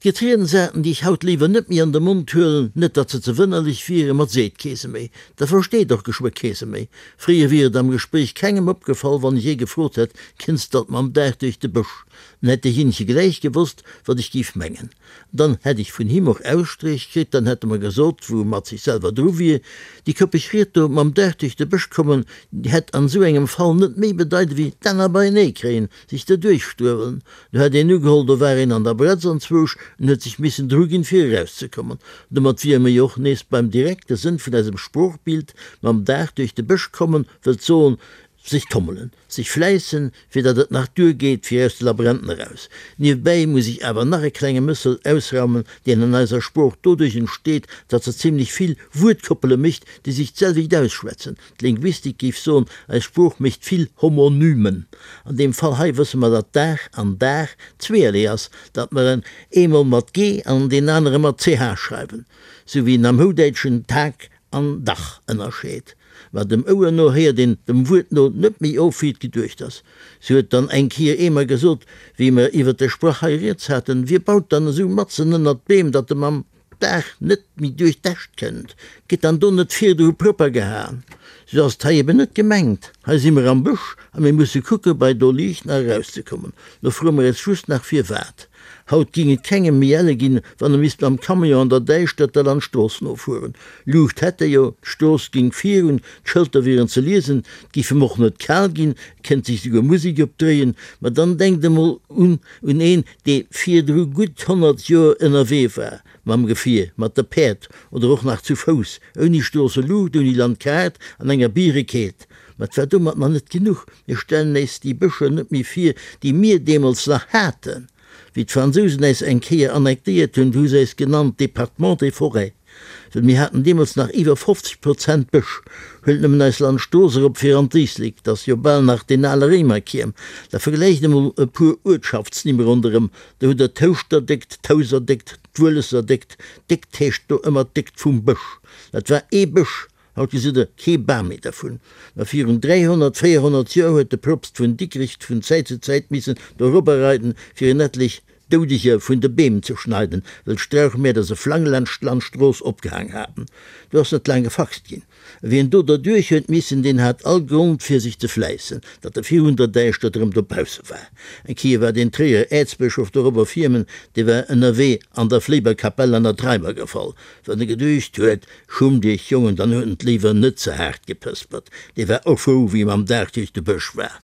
Gëtt Riedensarten, déi ech haut léiwer net méi an de Mond huelen, net datt se ze wënnerlech wieren, ma 't seet kee se méi, dat versteet och geschwë kee se méi. Fréier wier et am Gespréich kengem opgefall, wann ech ee gefrot hätt, Kënns d'alt mam Dag duerch de Bësch? Dann hätt deejéinege gläich gewosst, wat ech géif mengen. Dann hätt ech vun him och Ausstréich kritt, dann hätt e mer gesot, wou e mat sech selwer dru wier. Déi koppeg Ried do, mam Dag duerch de Bësch kommen, déi hätt an esou engem Fall net méi bedeit ewéi d'Enner beienee kréien, sech derduerch struewelen. Do hätt een ugeholl, do war een an der Bretz anzwousch en huet sech missen druginn, fir erauszekommen. Domat wiere mer jo och nees beim direkte Sënn vun eisem Sproochbild, mam Dag duerch de Bësch kommen wëllt soen, Sech tommelen, sech fläissen, fir datt et nach duer geet fir aus de Labyrinthen eraus. Niewebäi muss ech awer nach e klenge Mëssel ausraumen, deen an eiser Sprooch doduerch entsteet, datt se zimlech vill Wuertkoppele mécht, déi sech d'selwecht ausschwätzen. D'Linguistik géif soen, eis Sprooch mécht vill Homonymen. An deem Fall hei wësse mer, datt Dag an Daach zweeërlee ass, datt mer en eemol mat g an deen anere mat ch schreiwen, sou wéi een am Houdäitschen Tag an Dach ënnerscheet. Mä dem Ouer no héiert een dem Wuert no net méi of, wéi et geduecht ass. Si huet dann eng Kier eemer gesot, wéi mer iwwer de Sprach hei rieds haten, Wie baut dann esou matzen ënnert d'Beem, datt e mam Daach net méi duerch d'Äscht kënnt? Gëtt dann do net virdru propper gehaen? Sou ass et hei eben net gemengt. Hei si mer am Bësch a mir musse kucke bei do liicht nach erauszekommen. Lo froe mer eis just nach firwat. Haut ging et kengem méi elle ginn, wann e misst mam Camion an der Däischtert der Landstrooss nofueren. Luucht hätt e jo, d'Strooss ging virun, d'Schëlter wieren ze liesen, 't giff em och net kal ginn, et kéint sech souguer Musek opdréien. Ma dann denkt emol un un een, dee virdru gutt 100 Joer ënnerwee war, mam Gefier, mat de Päerd oder och nach zu Fouss, ouni Stroosseluucht, ouni Landkaart, an enger Bierekeelt. Ma 't war domat nach net genuch, Mir stellen äis déi Bëscher net méi vir, déi mir deemools nach haten. Wéi d'Fransousen äis eng Kéier annektéiert hunn, du hu se äis genannt Département des forêts, well mir haten deemools nach iwwer 50 Prozent Bësch. Huelt nëmmen eis Landstrooss erop fir an d'Éislek, 't ass jo bal nach deen ale Réimerkierm. Da vergläicht emol e puer Uertschaftsnimm ronderëm, do hutt der d'Houschterdéckt, d'Houserdéckt, d'Wueleserdéckt. Déckt heescht do ëmmer d'Déckt vum Bësch. Dat war ee Bësch, Haut gesitt der kee Bam méi dervun. Ma virun 300, 400 Joer huet de Propst vun Dikrich vun Zäit zu Zäit missen dorobber reiden, fir en etlech Doudeger vun de Beem ze schneiden, well d'Strauchmäerder se flang laanscht d'Landstrooss opgehaang haten. Do ass net laang gefaxt ginn. A wien do derduerch huet missen, deen hat all Grond fir sech ze fläissen, datt e virun der Däischtert erëm dobausse war. Eng Kéier war den Tréierer Äerzbëschof dorobber firmen, dee war ënnerwee an der Fléiber Kapell an der Treimer gefall, wann e geduecht huet, Schummt iech, Jongen, dann huet en d'Léiwer net ze haart gepëspert. Dee war och frou, wéi e mam Dag duerch de Bësch war.